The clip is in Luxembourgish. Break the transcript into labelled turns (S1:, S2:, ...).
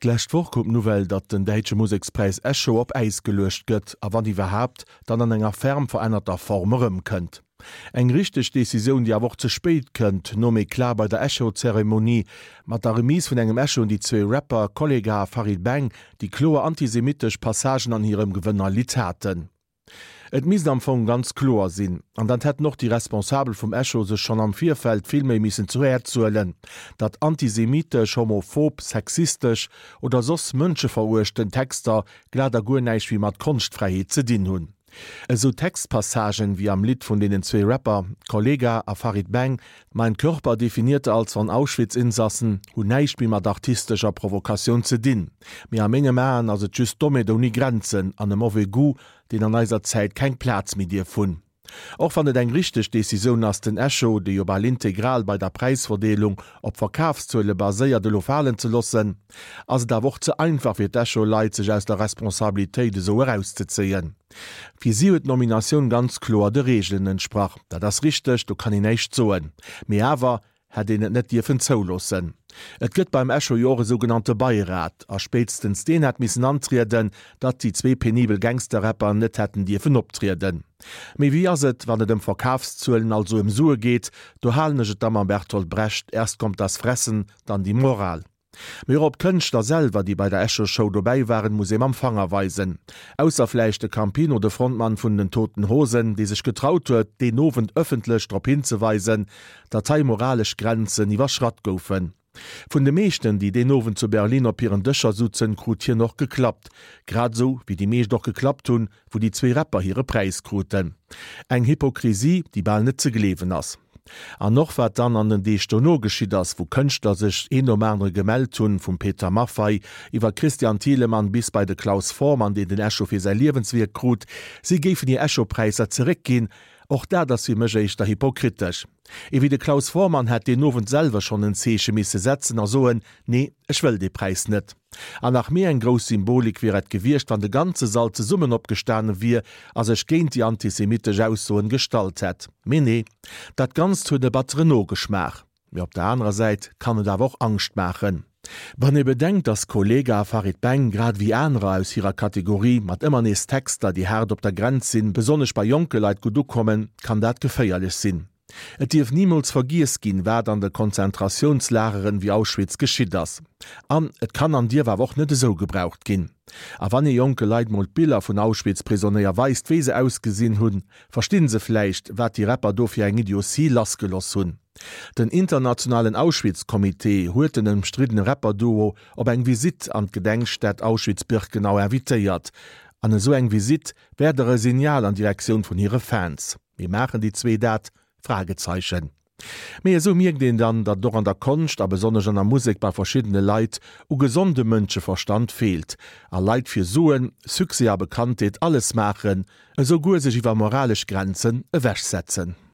S1: D'lescht Woch koum d'Nouvelle, datt den däitsche Musekspräis Echo op Äis geluecht gëtt, a wann iwwerhaapt, dann an enger ferm verännerter Form erëmkënnt. Eng richteg Decisioun, déi awer och ze spéit kënnt, nom Eclat bei der Echo-Zeremonie, mat der Remise vun engem Echo un déi zwee Rapper Kollegah a Farid Bang, déi kloer antisemitesch Passagen an hirem Gewënnerlidd haten. Et misst am Fong ganz kloer sinn, an dat hätten och déi Responsabel vum Echo sech schonn am Virfeld vill méi missen zu Häerz huelen, datt antisemitesch, homophob, sexistesch oder soss mënscheveruechtend Texter glat a guer näischt méi mat Konschtfräiheet ze dinn hunn. Esou Textpassagen wéi am Lidd vun deenen zwee Rapper Kollegah a Farid Bang Mein Körper definierte als von Auschwitz-Insassen hunn näischt méi mat artistescher Provokatioun ze dinn, mee a mengem Aen ass et just Dommheet ouni Grenzen an e mauvais goût, deen an eiser Zäit keng Plaz méi dierf hunn. Och wann et eng richteg Decisioun ass, den Echo, dee jo bal integral bei der Präisverdeelung op Verkafszuele baséiert, elo falen ze loossen, ass et awer och ze einfach fir d'Echo-Leit, sech aus der Responsabilitéit esou erauszezéien. Fir si huet d'Nominatioun ganz kloer de Reegelen entsprach. Dat ass richteg, do kann een näischt soen. Mee awer hätt een et net dierfen zouloossen. Et gëtt beim Echo jo och e sougenannte Beirat, a spéitstens deen hätt missen antrieden, datt déi zwee penibel Gangster-Rapper net hätten dierfen optrieden. Mee wéi ass et, wann et ëm Verkafszuelen, also ëm Sue geet? Do halen ech et da mam Bertolt Brecht, Erst kommt das Fressen, dann die Moral. Mee och op d'Kënschtler selwer, déi bei der Echo-Show dobäi waren, muss ee mam Fanger weisen. Ausser vläicht de Campino, de Frontmann vun den Toten Hosen, dee sech getraut huet, deen Owend ëffentlech drop hinzeweisen, datt hei moralesch Grenzen iwwerschratt goufen. Vun de meeschten, déi deen Owend zu Berlin op hiren Dëscher sutzen, krut hien och geklappt. Grad esou wéi déi meescht och geklappt hunn, wou déi zwee Rapper hire Präis kruten. Eng Hypokrisie, déi bal net ze gleewen ass. An och wat dann an den Deeg dono geschitt ass, wou Kënschtler sech een nom anere gemellt hunn, vum Peter Maffay iwwer Christian Thielemann bis bei de Klaus Voormann, deen den Echo fir säi Liewenswierk krut, si géifen hir Echo-Präisser zeréckginn, och dat ass fir mech éischter hypokritesch. Ee wéi de Klaus Voormann hätt deen Owend selwer schonn en Zeeche misse setzen a soen, Nee, ech wëll dee Präis net. An nach méi eng grouss Symbolik wier et gewiescht, wann de ganze Sall zesummen opgestane wier a sech géint déi antisemitesch Aussoen gestallt hätt. Mee nee, dat Ganzt huet e batteren Nogeschmaach. Mee op der anerer Säit kann et awer och Angscht maachen. Wann ee bedenkt, dass Kollegah a Farid Bang, grad ewéi anerer aus hirer Kategorie, mat ëmmer nees Texter, déi haart op der Grenz sinn, besonnesch bei jonke Leit gutt ukommen, kann dat geféierlech sinn. Et dierf nimools vergiess ginn, wat an de Konzentratiounslageren wéi Auschwitz geschitt ass. An et kann an dierf awer och net esou gebraucht ginn. A wann ee jonke Leit mol d'Biller vun Auschwitz-Prisonéier weist, wéi se ausgesinn hunn, verstinn se vläicht, wat déi Rapper do fir eng Idiotie lassgeloss hunn. Den internationalen Auschwitz-Comité huet den ëmstriddene Rapper-Duo op eng Visitt an d'Gedenkstätt Auschwitz-Birkenau invitéiert. An esou eng Visitt wär der e Signal an Direktioun vun hire Fans. Mee maachen déi zwee dat? Fragezeichen. Mee esou mierkt een dann, datt et och an der Konscht a besonnesch an der Musek bei verschiddene Leit u gesondem Mënscheverstand feelt a Leit fir Suen, Succès a Bekanntheet alles maachen, esou guer sech iwwer moralesch Grenzen ewechsetzen.